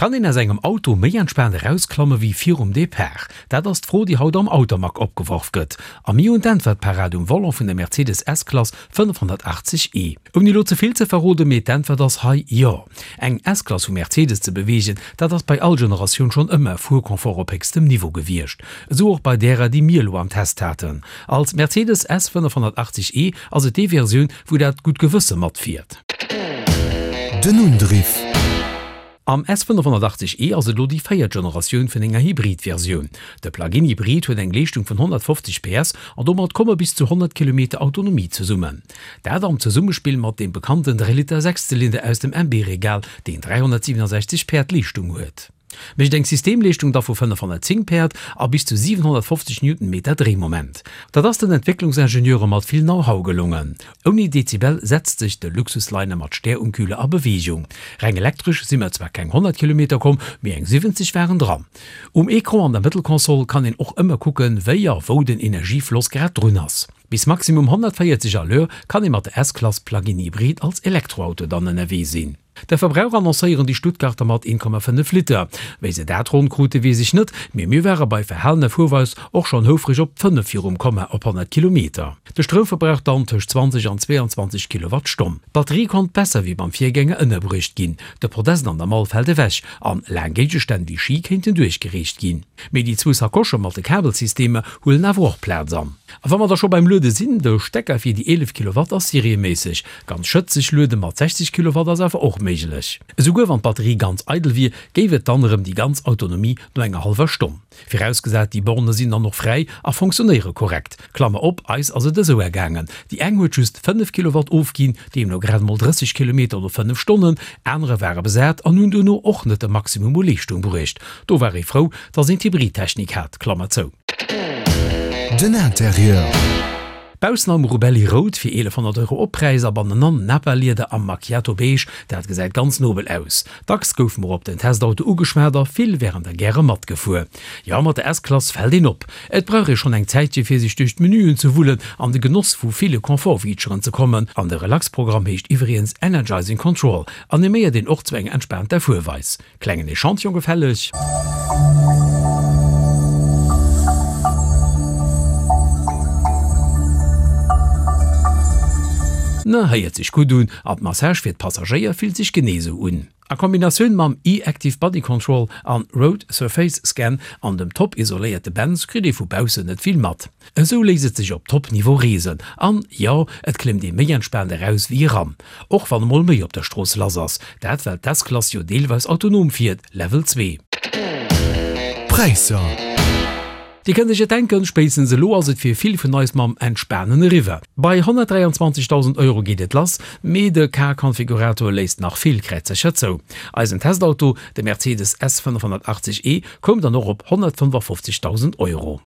Kann een aus engem Auto méi entspaant erausklamme wéi virum Depart? Dat ass d'Fro, déi haut am Automag opgeworf gëtt. A mir hunn d'Äntwert parat um Volant vun der Mercedes S-Klass 580 e. Ouni elo ze vill ze verroden, mee d'Äntwert ass hei jo. Eng S-Klass vu Mercedes ze beweegen, dat ass bei all Generatioun schonn ëmmer Fuerconfort op héchstem Niveau gewiescht. Esou och bei därer, déi mir elo am Test haten. Als Mercedes S 580 e ass et déi Versioun, wou dat gutt Gewësse matfiert. Den Undriff. Am S 580 e ass et elo déi véiert Generatioun vun enger Hybrid-Versioun. De Plug-in Hybrid huet eng Leeschtung vun 150 PS an domat komme bis zu 100 Kilometer Autonomie zesummen. Dat am Zesummespill mat deem bekannten 3 Liter Sechszylinder aus dem MB-Regal, deen 367 Päerd Leeschtung huet. Mécht eng Systemleeschtung da vu 510 Päerd a bis zu 750 Newtonmeter Dréimoment. Dat ass den Entwécklungsingenieure mat vill Know-how gelongen. Ouni Dezibel setzt sech de Luxusliner mat Stär um Kühler a Beweegung. Reng elektresch si mer zwar keng 100 Kilometer komm, mee eng 70 waren dran. Um Ecran an der Mëttelkonsol kann een och ëmmer kucken, wéi a wou den Energiefloss grad drun ass. Bis maximum 140 à l'heure kann ee mat der S-Klass Plug-in Hybrid als Elektroauto dann ënnerwee sinn. De Verbrauch annoncéieren déi Stuttgarter mat 1,5 Liter. Wéi se dat ronn krute weess ech net, mee mir ware bei verhalener Fuerweis och schonn houfreg op 5 virum Komma op 100 Kilometer. De Stroumverbrauch dann tëscht 20 an 22 Kilowattstonn. D'Batterie konnt besser wéi beim Virgänger ënnerbruecht ginn, de Podest an der Mall fält ewech an laang Géigestänn wéi Ski kéinten duerchgereecht ginn. Mee déi zwou Sakosche mat de Kabelsystemer huelen awer och Plaz an. A wa mer da scho beim Luede sinn, de Stecker fir déi 11 Kilowatt ass serieméisseg ganz schëtzeg, luede mat 60 Kilowatt ass awer och méiglech. Esouguer wann d'Batterie ganz eidel wier, géif et dann erëm déi ganz Autonomie no enger hallwer Stonn. Virausgesat déi Borne sinn dann och fräi a fonctionnéiere korrekt. Klammer op, eis ass et esou ergaangen, déi eng huet just 5 Kilowatt ofginn, deemno grad emol 30 Kilometer no 5 Stonnen, anerer ware besat an hunn duerno och net de Maximum u Leeschtung bruecht. Do war ee frou, dass een d'Hybridtechnik hat. Klammer zou. Den Interieur. Baussen am Rubelli Rout fir 1100 Euro Oppräis a bannenan Nappa-Lieder am Macchiato Beige, dat gesäit ganz nobel aus. Dacks goufe mer op den Testauto ugeschwat a vill wären der gäre matgefuer. Jo, mat der S-Klass fält een op. Et brauch ee schonn eng Zäitche fir sech duerch d'Menüen ze wullen an de Genoss vu ville Confort-Featuren ze kommen. An de Relax-Programm heescht iwwregens Energizing Control, animéiert een och zu enger entspaanter Fuerweis. Klengen Echantillon gefälleg? Na, héiert sech gutt un, an d'Massage fir d'Passagéier fillt sech genee sou un. A Kombinatioun mam e-Active Body Control an Road Surface Scan an dem top isoléierte Benz kritt ee vu baussen net vill mat. Esou léisst et sech op Top Niveau reesen an, jo, et klëmmt ee méi entspaant eraus wéi eran. Och wann emol méi op der Strooss lass ass, dat well d'S-Klass jo deelweis autonom fiert, Level 2. Präisser. Dir kënnt iech et denken, spéitstens elo ass et fir vill vun eis mam Entspanen eriwwer. Bei 123.000 Euro geet et lass, mee de Car-Konfigurator léisst nach vill Kräizercher zou. Eisen Testauto, de Mercedes S 580 E, koum dann och op 155.000 Euro.